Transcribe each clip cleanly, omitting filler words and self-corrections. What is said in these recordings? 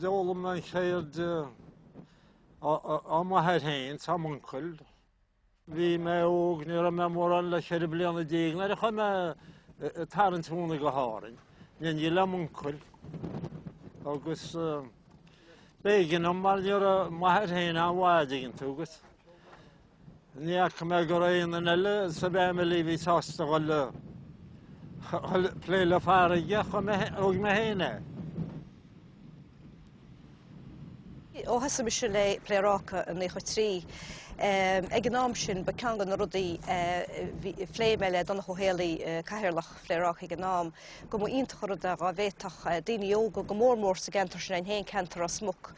D'fhoghlaim mé an cheird ó m'athair féin 's ó m'uncail. Bhí mé óg, ní raibh mé mórán le 14 bliana nuair a chuaigh mé ag tarraingt mhóna go hÁrainn, in éindí le m'uncail. Agus b'éigean dom mar ní raibh m'athair féin an-mhaith, an dtuigeann tú, agus Ní fhaca mé go raibh aon duine eile sa bhfamily a bhí sásta dhul a plé le farraige, thóg mé féin é. Ó thosaigh mise le Pléaráca i 93, ag an am sin ba ceann de na rudaí a phléigh mé le Donncha Ó Héalaí, Cathaoirleach Phléaráca ag an am, go mba iontach an rud é dhá bhféadfadh daoine óga, go mór mór sa gceantar sin againn féin, ceantar Ros Muc,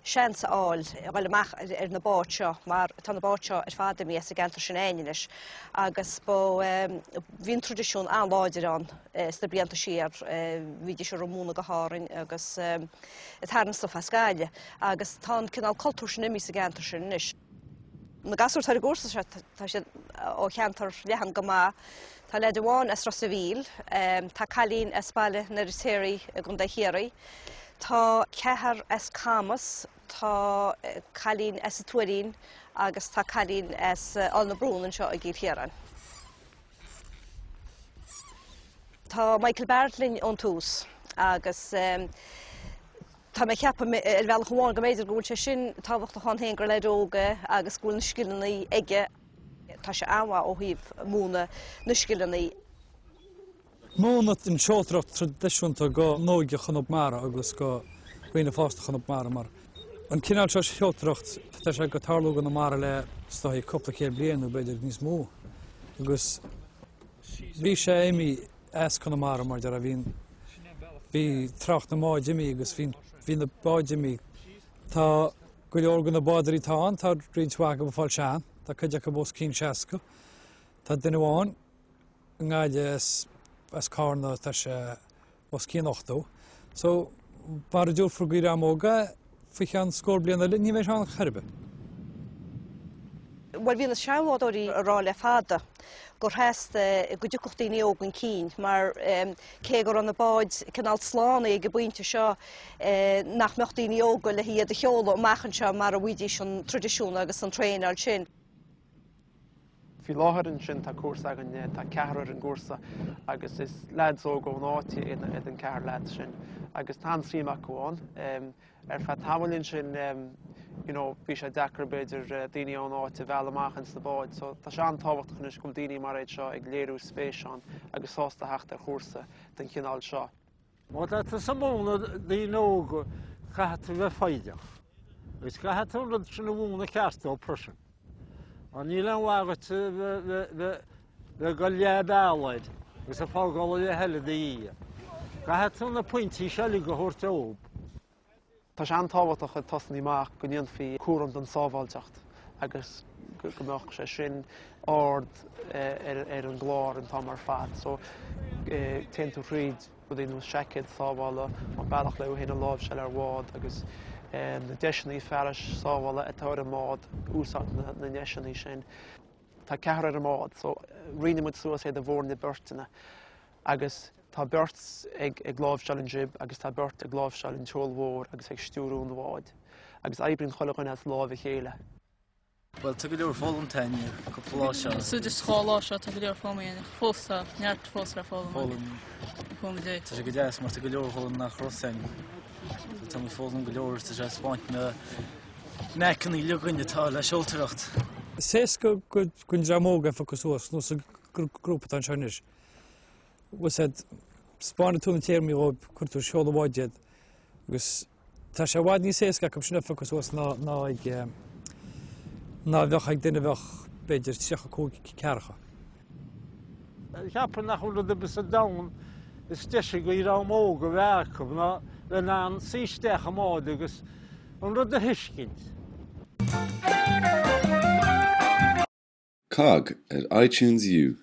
seans a fháil a dhul amach ar na báid seo mar tá na báid seo ar fad imithe as an gceantar sin againn anois agus ba bhí an traidisiún an-láidir ann sna blianta siar bhídís ag rith móna go hÁrainn agus ag tarraingt stuif as Gaillimh agus tá an cineál cultúr sin imithe sa gceantar sin anois. Na gasúir atá ar an gcúrsa seo tá siad ó cheantar leathan go maith. Tá leaid amháin as Ros a' Mhíl, tá cailín as Baile an Fheirtéaraigh i gContae Chiarraí, tá ceathrar as Camas, tá cailín as an Tuairín agus tá cailín as Aill na Brún anseo i gCill Chiaráin. Tá Michael Barrett linn ón tús agus tá mé ag ceapadh ar bhealach amháin go mb'fhéidir go bhfuil sé sin tábhachtach ann féin gur leaid óg é agus go bhfuil na scileanna aige. Tá sé an-mhaith ó thaobh múineadh na scileanna. Múineadh an tseoltóireacht traidisiúnta go n-óige Chonamara agus go dhaoine fásta Chonamara mar an cineál seo seoltóireacht tá sé ag tarlú i gConamara le is dóigh cúpla céad bliain nó b'fhéidir níos mó agus bhí sé imithe as Conamara mar deir bhí bhí trácht na mbád imithe agus bhí bhí na báid imithe. Tá go leor de na bádóirí atá ann, tá roinnt mhaith acu ag fáil sean, tá cuid acu os cionn 60. Tá duine amháin i nGaillimh as, as Carna, tá sé os cionn 80. So, mara dtabharfar don dream óg é, faoi cheann scór bliain eile, ní bheidh sé ann chor ar bith. Bhuel, bhí na seanbhádóirí ag rá le fada gur theastaigh go dtiocfadh daoine óga chun cinn mar cé go raibh na báid cineál slánaithe ag an bpointe seo nach mbeadh daoine óga le hiad a sheoladh amach anseo mara bhfaighidís an traidisiún agus an traenáil sin. Faoi láthair ansin tá cúrsa againn, tá ceathrar ar an gcúrsa agus is leaids óga ón áit iad an ceathrar leaids sin agus tá an-suim acu ann. Ar feadh tamaill ansin you know bhí sé deacair b'fhéidir daoine ón áit a mhealladh amach ins na báid so tá sé an-tábhachtach anois go bhfuil daoine mar iad seo ag léiriú spéis ann agus sásta theacht ar chúrsa den chineál seo. Má tá tusa ag múineadh daoine óga caithfidh tú bheith foighdeach agus caithfidh tú an rud sin a mhúineadh ceart dóibh freisin. Mar níl aon mhaith duit bheith ag dul leath bealaigh air agus ag fágáil an leath eile ina dhiaidh. Caithfidh tú na pointí seo uilig a thabhairt dóibh. Tá sé an-tábhachtach ag tosnaí amach go ndéanfaí cúram den sábháilteacht agus go mbeadh sé sin ard ar an gclár an t-am ar fad. So téann tú thríd rudaí ar nós seaicéad sábhála, an bealach le thú féin a láimhseáil ar bhád agus na deiseanna fearais sábhála atá ar an mbád, úsáid na ndeiseanna sin. Tá ceathrar ar an mbád so roinneann muid suas iad i bhfoirne beirteanna agus tá beirt ag ag láimhseáil an jib agus tá beirt ag láimhseáil an tseol mhór agus ag stiúrú an bháid agus oibríonn chuile dhuine as láimh a chéile. Bhuel, tá go leor foghlamtha againn cúpla lá seo. So just 2 lá seo tá go leor foghlamtha againn ach fós tá neart fós le foghlaim. Foghlaim. Foghlaim dé. Tá sé go deas mar tá go leor foghlaim nach raibh againn. So tá muid foghlaim go leor tá sé ag spáint na knack-anna uilig againn atá le seoltóireacht. Is éasca don dream óg é a phiocadh suas, nós an grúpa atá anseo anois. Bhfuil said, spáineann tú na téarmaí dhóibh, cuireann tú seol an bháid iad agus tá sé i bhfad níos éasca acu sin a phiocadh suas ná ná ag ná a bheadh ag duine a bheadh b'fhéidir 35, 40. Cheapfainn nach bhfuil rud ar bith sa domhan is deise do dhream óg a bheith acu ná bheith in ann suí isteach i mbád agus an rud a thuiscint. Cogg ar iTunes U.